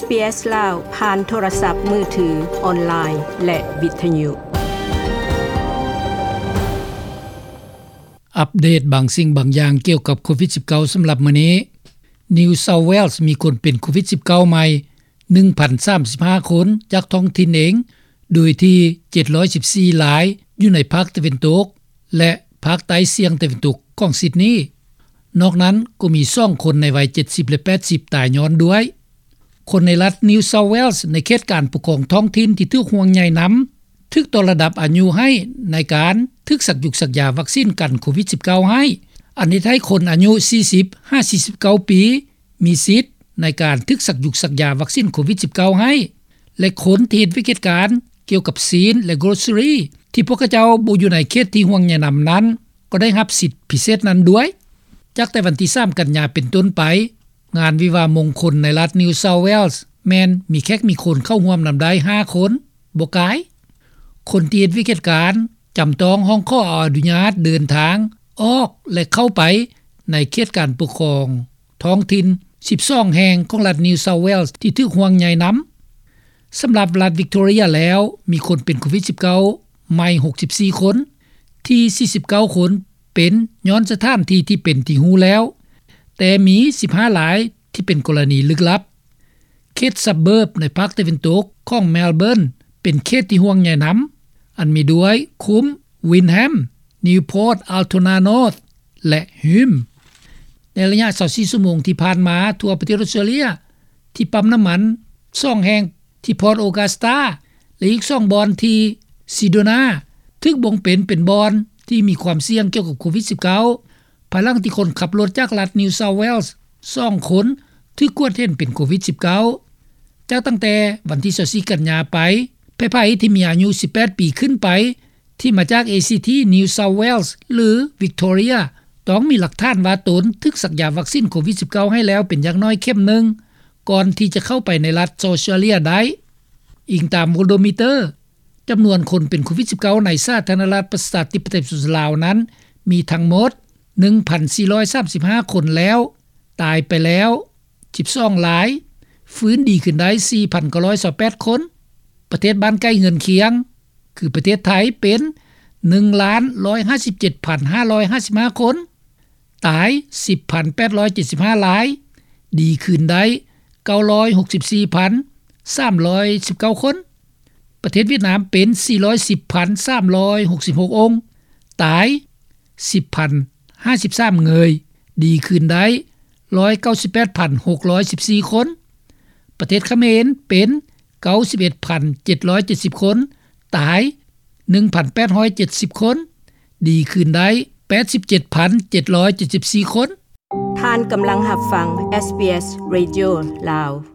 ເອສ ລາວ ຜ່ານໂທລະສັບມືຖື, ອອນລາຍ ແລະ ວິທະຍຸ. ອັບເດດບາງສິ່ງບາງຢ່າງກ່ຽວກັບໂຄວິດສິບເກົ້າ ສຳລັບມື້ນີ້. New South Wales ມີຄົນເປັນໂຄວິດສິບເກົ້າໃໝ່ ໜຶ່ງພັນສາມສິບຫ້າຄົນ ຈາກທ້ອງຖິ່ນເອງ, ໂດຍທີ່ເຈັດຮ້ອຍສິບສີ່ລາຍຢູ່ໃນພາກຕາເວັນຕົກ ແລະ ພາກໃຕ້ສ່ຽງຕາເວັນຕົກຂອງຊິດນີ. ນອກນັ້ນກໍມີສອງຄົນໃນໄວເຈັດສິບ ແລະ ແປດສິບຕາຍຍ້ອນດ້ວຍ. ຄົນໃນລັດ New South Wales ໃນເຂດການປົກຄອງທ້ອງຖິ່ນທີ່ຖືກຫ່ວງໃຍນຳ ຖືກຕໍ່ລະດັບອາຍຸໃຫ້ໃນການຖືກສັກຢຸກສັກຢາວັກຊີນກັນໂຄວິດສິບເກົ້າໃຫ້, ອັນເຮັດໃຫ້ຄົນອາຍຸສີ່ສິບຫາສີ່ສິບເກົ້າປີ ມີສິດໃນການຖືກສັກຢຸກສັກຢາວັກຊີນໂຄວິດສິບເກົ້າໃຫ້ ແລະ ຄົນທີ່ເຮັດວຽກເຮັດການກ່ຽວກັບຊີ້ນ ແລະ ໂກຣເຊີຣີ ທີ່ພວກເຂົາເຈົ້າບໍ່ຢູ່ໃນເຂດທີ່ຫ່ວງໃຍນຳນັ້ນ ກໍໄດ້ຮັບສິດພິເສດນັ້ນດ້ວຍ. ຈາກແຕ່ວັນທີສາມກັນຍາເປັນຕົ້ນໄປ, ງານວິວາມງຄົນໃນລັດ New South Wales ແມ່ນມີແຂກມີຄົນເຂົ້າຮ່ວມນຳໄດ້ຫ້າຄົນ, ບໍ່ກາຍ. ຄົນທີ່ເຮັດວຽກເຮັດການ ຈຳຕ້ອງຮ້ອງຂໍອະນຸຍາດເດີນທາງອອກ ແລະ ເຂົ້າໄປໃນເຂດການປົກຄອງທ້ອງຖິ່ນສິບສອງແຫ່ງຂອງລັດ New South Wales ທີ່ຖືກຫ່ວງໃຍນຳ. ສຳລັບລັດ Victoria ແລ້ວ ມີຄົນເປັນໂຄວິດສິບເກົ້າໃໝ່ຫົກສິບສີ່ຄົນ, ທີ່ສີ່ສິບເກົ້າຄົນເປັນຍ້ອນສະຖານທີ່ທີ່ເປັນທີ່ຮູ້ແລ້ວ, ແຕ່ມີສິບຫ້າລາຍທີ່ເປັນກໍລະນີລຶກລັບ. ເຂດ suburb ໃນພາກຕາເວັນຕົກຂອງ Melbourne ເປັນເຂດທີ່ຫ່ວງໃຍນຳ, ອັນມີດ້ວຍ Coombe, Wyndham, Newport, Altona North ແລະ Hume. ໃນໄລຍະຊາວສີ່ຊົ່ວໂມງທີ່ຜ່ານມາ, ທົ່ວປະເທດອອສເຕຣເລຍ ທີ່ປ້ຳນ້ຳມັນສອງແຫ່ງທີ່ Port Augusta ແລະ ອີກສອງບ່ອນທີ່ Cedona ຖືກບົ່ງເປັນເປັນບ່ອນທີ່ມີຄວາມສ່ຽງກ່ຽວກັບໂຄວິດສິບເກົ້າ ພາຍຫຼັງທີ່ຄົນຂັບລົດຈາກລັດ New South Wales ສອງຄົນຖືກກວດເຫັນເປັນໂຄວິດສິບເກົ້າ. ຈາກຕັ້ງແຕ່ວັນທີຊາວສີ່ກັນຍາໄປ, ໃຜໆທີ່ມີອາຍຸສິບແປດປີຂຶ້ນໄປ ທີ່ມາຈາກ ACT, New South Wales ຫຼື Victoria ຕ້ອງມີຫຼັກຖານວ່າຕົນຖືກສັກຢາວັກຊີນໂຄວິດສິບເກົ້າໃຫ້ແລ້ວເປັນຢ່າງໜ້ອຍເຂັມໜຶ່ງ ກ່ອນທີ່ຈະເຂົ້າໄປໃນລັດ Australia ໄດ້. ອີງຕາມ Worldometer, ຈຳນວນຄົນເປັນໂຄວິດສິບເກົ້າໃນສາທາລະນະລັດປະຊາທິປະໄຕປະຊາຊົນລາວນັ້ນ ມີທັງໝົດໜຶ່ງພັນສີ່ຮ້ອຍສາມສິບຫ້າຄົນແລ້ວ, ຕາຍໄປແລ້ວສິບສອງລາຍ, ຟື້ນດີຂຶ້ນໄດ້ສີ່ພັນເກົ້າຮ້ອຍຊາວແປດຄົນ. ປະເທດບ້ານໃກ້ເຮືອນຄຽງ ຄືປະເທດໄທ ເປັນໜຶ່ງລ້ານຮ້ອຍຫ້າສິບເຈັດພັນຫ້າຮ້ອຍຫ້າສິບຫ້າຄົນ, ຕາຍສິບພັນແປດຮ້ອຍເຈັດສິບຫ້າລາຍ, ດີຄືນໄດ້ເກົ້າຮ້ອຍຫົກສິບສີ່ພັນສາມຮ້ອຍສິບເກົ້າຄົນ. ປະເທດຫວຽດນາມເປັນສີ່ຮ້ອຍສິບພັນສາມຮ້ອຍຫົກສິບຫົກອົງ, ຕາຍສິບພັນຫ້າສິບສາມເງີຍ, ດີຄືນໄດ້ຮ້ອຍເກົ້າສິບແປດພັນຫົກຮ້ອຍສິບສີ່ຄົນ. ປະເທດຂະເໝນເປັນເກົ້າສິບເອັດພັນເຈັດຮ້ອຍເຈັດສິບຄົນ, ຕາຍໜຶ່ງພັນແປດຮ້ອຍເຈັດສິບຄົນ, ດີຄືນໄດ້ແປດສິບເຈັດພັນເຈັດຮ້ອຍເຈັດສິບສີ່ຄົນ. ທ່ານກຳລັງຮັບຟັງ SBS Radio ລາວ.